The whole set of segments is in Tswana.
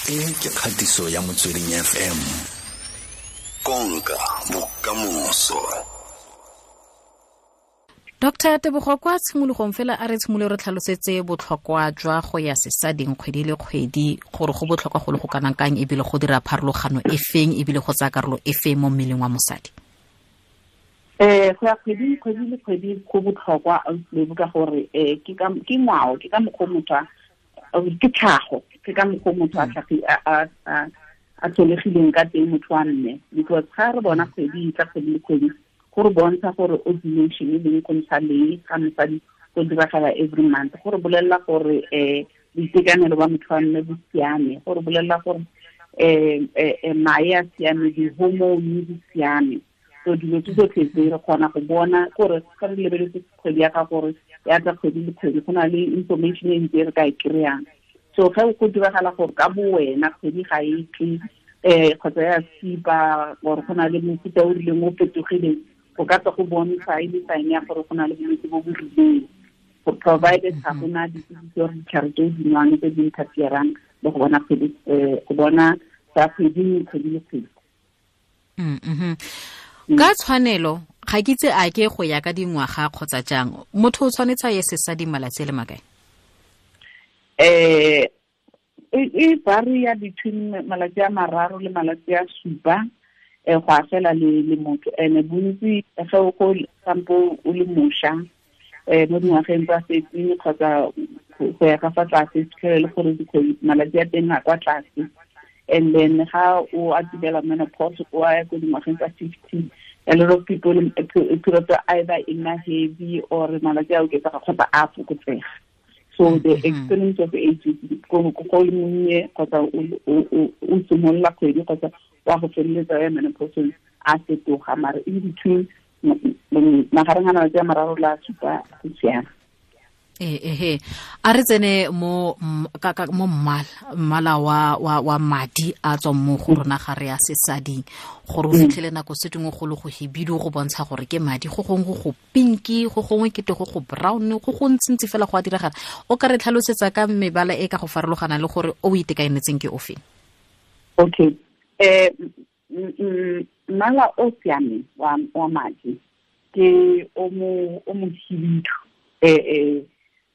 E ke kgatiso ya Motsweding FM. Konka bokamoso. Dr. Tebogo, kwa tshimologong fela a re tshimolole re tlhalosetse botlhokwa jwa go ya sesading kgwedi le kgwedi, gore go botlhokwa go le go kanang kang, ebile go dira pharologano e feng, ebile go tsaya karolo e feng mo mmeleng wa mosadi. Go ya kgwedi le kgwedi go botlhokwa ka gore ke ngwao, ke ka mokgwa motho ke tlhago, ke ka mokgwa motho a tlholegileng ka teng motho wa mme, because ga re bona kgwedi tla kgwedi le kgwedi go re bontsha gore ovulation e leng go ntsha lee ga mosadi go diragala every month, go re bolelela gore boitekanelo ba motho wa mme bo siame, go re bolelela gore mae a siame, di-hormone di siame. So dilo tse tsotlhe tse re kgona go bona gore ga re lebeletse kgwedi ya ga gore ya tla kgwedi le kgwedi, go na le information e ntse re ka e kry-ang. So ge go diragala gore ka bo wena kgwedi ga e tle kgotsa ya skipa, gore go na le mofuta o rileng o fetogileng, go ka tswa go bontsha e le sign ya gore go na le bolwetse bo bo rileng, go provided ga gona dipilisi or ditlhare tse di nwang tse di interferang le go bona kgwedi, go bona tsa kgwedi kgwedi le kgwedi. Ka tshwanelo ga ke itse a ke go ya ka dingwaga kgotsa jang, motho o tshwanetse a ye sesading malatsi a le makae? E varia between malatsi a 3 le malatsi a 7, go a fela le motho. Ene bontsi ge o go sampo o le mošwa, mo dingwageng tsa 13 kgotsa go ya ka fa tlase, fitlhele le gore malatsi a teng a kwa tlase. And then ga o atumela menopause, o ya ko dingwageng tsa 50, a lot of people period either e nna heavy or malatsi a oketsega kgotsa a fokotsega. So the experience of age, go le monnye kgotsa o simolola kgwedi kgotsa wa go feleletsa ya menopause a fetoga, mare in between magareng a malatsi a 3 le a 7 go siame. A re tsene mo mo mmala wa madi a tswang mo go rona ga re ya sesading, gore o fitlhele nako se dingwe go le go hibidu go bontsha gore ke madi, go gongwe go pinki, go gongwe ke go go brown, go go ntsintsi fela go a diragala. O ka re tlhalosetsa ka mebala e ka go farologana le gore o itekanetseng ke ofe? Okay. Mmala o siameng wa madi ke o mo hibidu,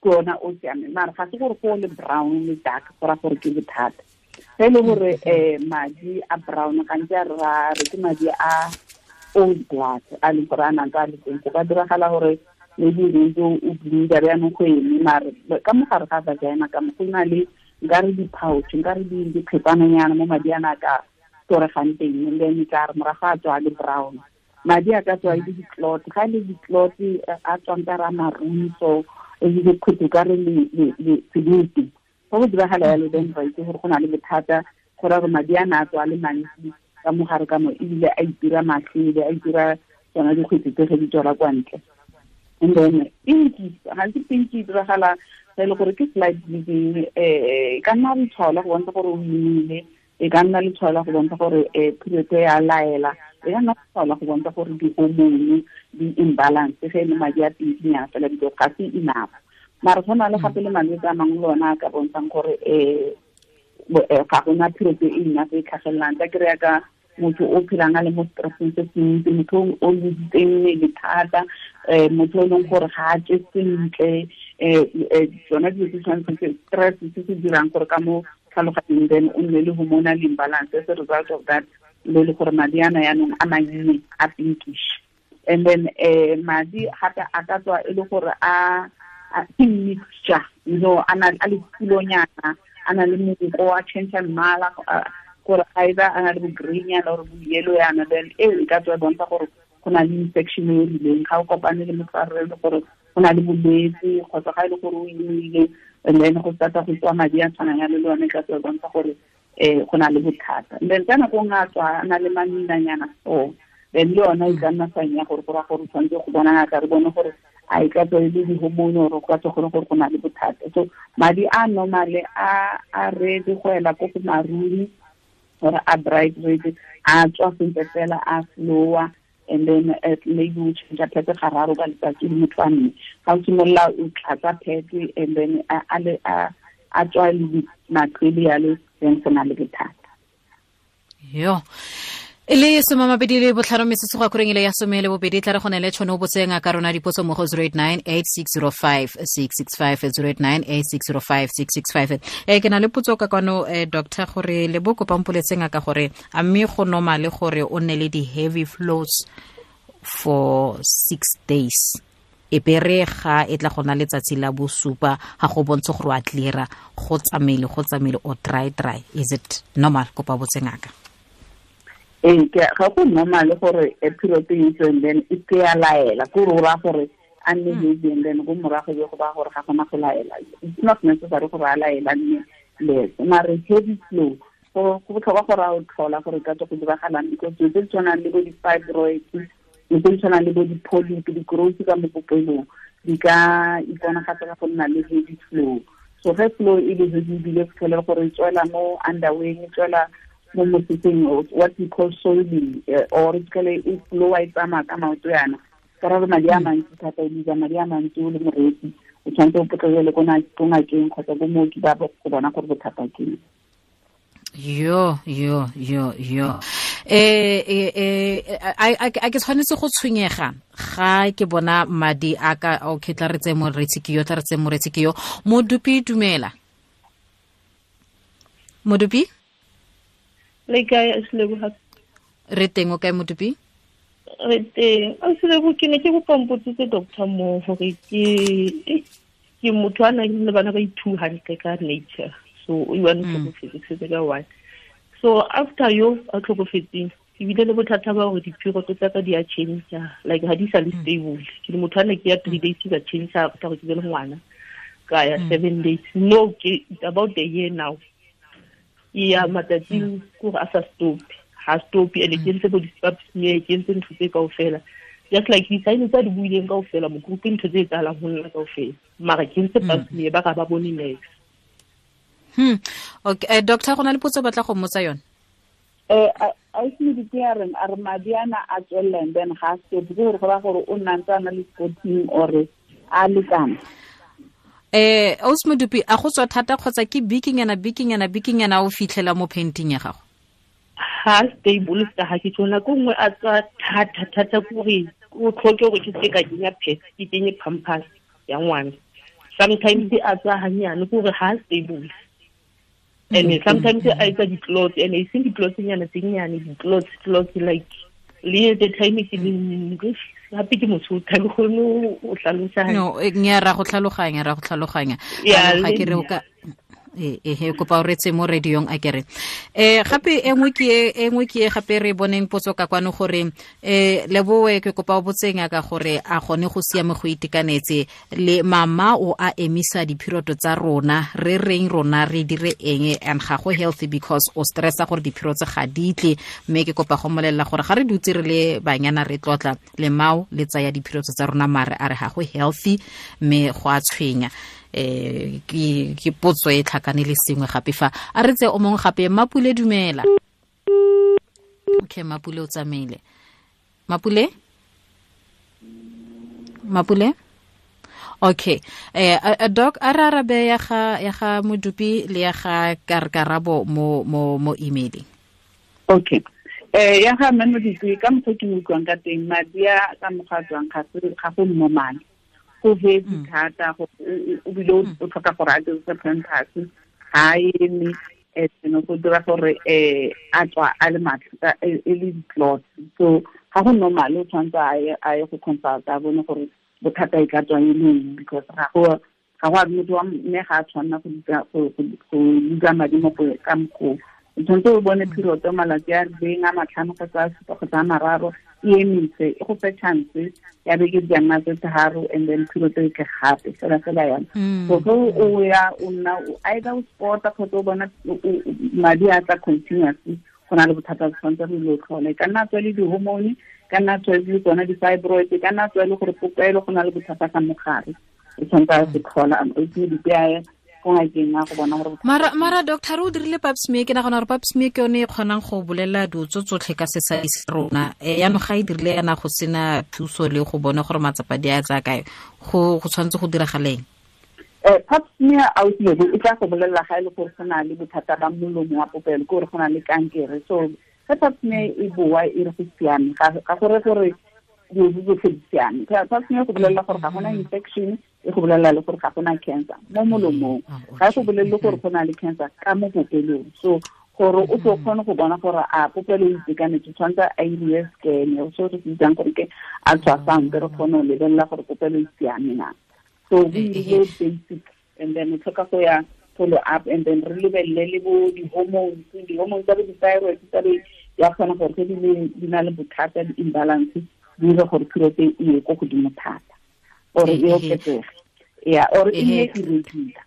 ke ona o siameng, mara ga se gore go le brown le dark go ra gore ke bothata. Ge e le gore madi a brown gantsi a re ke madi a old blood a leng gore a nang a le teng, go ka diragala gore maybe ntse o bleeda jaanong go eme, mare ka mogare ga vagina ka mo go na le nkare di-pouch, nkare dikgetsananyana mo madi ana a ka toregang teng, and then tla re morago a tswa le brown. Madi a ka tswa e le di-clot, ga e le di-clot a tswang ka ra maroon, so e le dikhutu ka re le sebete. Fa go diragala yalo, then ra itse gore go na le bothata, go raya gore madi a na a tswa le mantsi ka mogare ka mo, ebile a itira matlhele, a itira tsona dikgwetsi tse ge di tswela kwa ntle. And then pinki, gantsi pinki e diragala ge e le gore ke slight bleeding, e ka nna letshwao la go bontsha gore o imile, e ka nna letshwao la go bontsha gore period ya laela, e ka nna letshwao la go bontsha gore di-hormone di imbalance ge e le madi a pinkinyana fela, because ga se enough. Mara go na le gape le malwetse a mangwe le ona a ka bontshang gore ga gona period e enough e tlhagelelang. Tla kry-a ka motho o phelang a le mo stresseng se se ntsi, motho o lositseng mmele thata, motho o e leng gore ga a je sentle, tsona dilo tse tshwanetseng stress se se dirang gore ka mo tlhaloganyong then o nne le hormonal imbalance. As a result of that, le le gore madi ana yaanong a mannye a pinkish. And then madi gape a ka tswa e le gore a ke mixture, you know, a na a le pulonyana, a na le monko, a change mmala, gore either a na le bo green yana or bo yellow yana, then eo e ka tswa e bontsha gore go na le infection e rileng. Ga o kopane le motho a re le gore go na le bolwetse, kgotsa ga e le gore o imile, and then go start-a go tswa madi a tshwanang yalo, le yone e ka tswa e bontsha gore go na le bothata. And then ka nako nngwe a tswa a na le maminanyana so, then le yona e ka nna sign ya gore go raya gore o tshwanetse go bona ngaka, re bone gore a e ka tswa e le di-hormone or go ka tswa gore go na le bothata. So madi a normale a red go ela ko go maroon or a bright red, a tswa sentle fela, a flowa, and then maybe o change pad gararo ka letsatsi le motho wa mme. Ga o simolola o tlatsa pad and then a a tswa le matlwele yalo, then go na le bothata. Yo e le 25 metsotso go akoreng ile ya 12 tla re go ne le tšhono o botse ngaka rona dipotso mo go 089 8605 665 089 8605 665. Ke na le potso ka kwano, doctor, gore le bo kopa mpoletse ngaka gore a mme go normal gore o nne le di-heavy flows for 6 days, e bere ga e tla go na letsatsi la bosupa ga go bontshe gore wa cleara, go tsamaile o dry, is it normal? Kopa botse ngaka. Ee, ga go normal gore a period e tswe and then e ke ya laela, ko re ra gore a nne heavy and then go morago be go ba gore ga gona go laela. It's not necessary gore a laela nne less, mare heavy flow go botlhokwa gore a o tlhola gore ka tswa go diragalang, because dilo tse di tshwanang le bo di-fibroids, dilo tse di tshwanang le bo di-polyp, di-growth ka mo popelong di ka iponagatsa ka go nna le heavy flow. So ge flow e le heavy ebile fitlhele gore e tswela mo underway, e tswela mo moseseng, what we call soiling, or e e flow e tsamaya ka maoto yana, ka ra madi a mantsi thata, o bitsa madi a mantsi o le moreetsi, o tshwanetse o potlakele ko ngakeng kgotsa ko mooki ba go bona gore bothata ke eng. Yo a ke tshwanetse go tshwenyega ga ke bona madi a ka? Okay, tla re tse moreetsi ke yo, Modupi, dumela Modupi. Le kae, Seleboga? Re teng, o kae Modupi? Re teng. Selebo, ke ne ke kopa mpotsitse doctor mo gore ke motho a nang le bana ba i-2 hantle ka nature, so o one tlhokofetse ka one. So after yo a tlhokofetseng, ebile le bothata ba gore di-period tsa ka di a change, like ha di sa le stable. Ke le motho a ne ke ya 3 days ka change after gore ke be le ngwana, ka ya 7 days. No, ke about a year now. Ya matsatsing gore a sa stop, ha stop, ene ke ntse bo di-pap smear, ke ntse ntho tse kaofela, just like di-sign tsa di buileng kaofela mo group, ntho tse etsahalang ho nna kaofela, mara ke ntse pap smear ba ga ba bone next. Okay, doctor, go na le potso batla go mmotsa yone. A se di ke a re madi ana a tswella and then ga stop, ke gore go ra gore o nna ntse a na le spotting or a lekana. Ausi Modupi, a go tswa thata kgotsa ke bikinyana o fitlhela mo painting ya gago? Ha stable ka ha ke tsona ko nngwe a tswa thata gore o tlhoke gore ke se ka kenya pet, ke kenye pampers ya ngwana. Sometimes a tswa hanyane gore ha stable. And sometimes a etsa di-clots, and e seng di-clots nyana tse nyane, di-clots like le the time ke le gape ke motho ga ke kgone o tlhalosa. No, nya ra go tlhaloganya. Ga ke re o ka kopa o retse mo radiong a kere. Gape e nngwe ke gape re boneng potso ka kwano gore leboe ke kopa o botseng ka gore a gone go siame go itekanetse le mama o a emisa diphiroto tsa rona, re reng rona re dire eng, and ga go healthy because o stressa gore diphiroto ga di tle, mme ke kopa go molelela gore ga re dutse re le banyana re tlotla le mao le tsaya diphiroto tsa rona, mare a re ga go healthy mme go a tshwenya. Ke potso e tlhakane le sengwe gape fa a re tse o mongwe gape. Mapule, dumela. Okay, Mapule o tsamaile. Mapule? Okay. Doc, a re arabe ya ga Modupi le ya ga Karabo mo emailing. Okay. Ya ga mme Modupi, ka mokgwa ke mo utlwang ka teng, madi a ka mokgwa a tswang ga go normal. Go heavy thata, o bile o tlhoka gore a dirise pampers, ga eme, go dira gore a tswa a le matlha e le di-clots. So ga go normal, o tshwanetse a ye go consult a bone gore bothata e ka tswa e le eng, because ga go a motho wa mme ga a tshwanela go dutsa madi mo ka mokgwa. O tshwanetse o bone period malatsi a rileng a 5 kgotsa a 7 kgotsa a 3, e emise, e go fe chance ya beke di nna tse 3, and then period e tle gape fela yana. So ge o ya o nna either o spota kgotsa o bona madi a tla continuously, go na le bothata bo tshwanetse re lo tlhola. E ka nna tswa le di-hormone, ka nna tswa le tsona di-fibroid, ka nna tswa le gore popelo go na le bothata ka mogare, o tshwanetse a se tlhola, o itse di-PI Mara doctor o dirile pap smear, ke nagana gore pap smear ke yone e kgonang go bolela dilo tsotlhe ka sesadi sa rona. Yaanong ga e dirile yana go sena thuso le go bona gore matsapa di a tsaya kae, go tshwanetse go diragaleng? Pap smear ausilebo e tla go bolelela ga e le gore go na le bothata ba molomo wa popelo, ke gore go na le kankere. So ge pap smear e boa e re go siame, ga gore gore dilo tsotlhe di siame. Pap smear go bolelela gore ga gona infection, e go bolelela le gore ga gona cancer mo molomong, ga e go bolelele gore go na le cancer ka mo popelong. So gore o tlo kgone go bona gore a popelo e itekanetse, tshwanetse a iriwe scan, so re se bitsang gore ke ultrasound, re kgone go lebelela gore popelo e siame na. So we do basic, and then we tlhoka go ya follow up, and then re lebelele le bo di-hormones tsa bo di-thyroid tsa be ya kgona gore ge di na le bothata, di-imbalance, di dire gore period e ye ko godimo thata or e oketsege, yeah, or e nne irregular.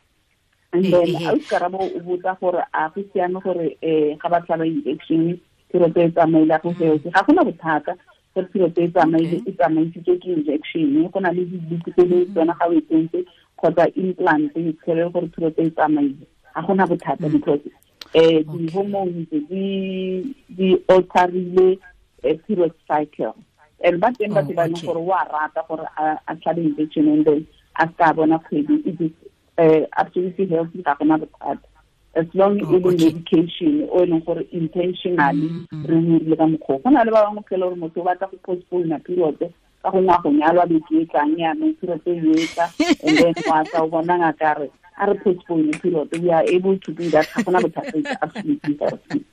And then Karabo o botsa gore a go siame gore ga ba tlhaba injection period e tsamaile go seo, ga gona bothata gore period e tsamaile, e tsamaisitswe ke injection, go na le di-book tse le tsona ga o e tsentse kgotsa implant e tshele gore period e tsamaile, ga gona bothata because di-hormones di alterile period cycle. And ba teng batho ba leng gore wa rata gore a tlhabe injection and then a ska bona kgwedi, it is absolutely healthy, ga gona bothata as long as e le medication o e leng gore intentionally re dirile ka mokgwa. Go na le ba bangwe phela gore motho o batla go postpone period ka gongwe a go nyalwa beke e tlang yanong period e etla, and then wa tla o bona ngaka re a re postpone period, we are able to do that, ga gona bothata, it's absolutely healthy.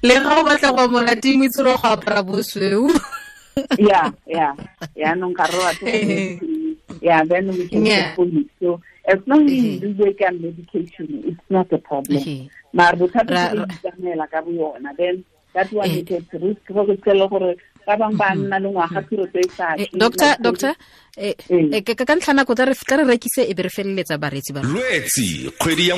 Le ga o batla go monate mo itse go apara bosweu. Yeah, yaanong ga re batho, yeah, then we can postpone it. So as long as you do get medication, it's not a problem. Mara bothata ke tsamaela ka boyona, then that one is at risk go tsela gore ba bang ba nna le ngwaga period e sa. Doctor, ka ntlha nako tla re rekise e be re feleletsa bareetsi ba. Lwetsi kgwedi ya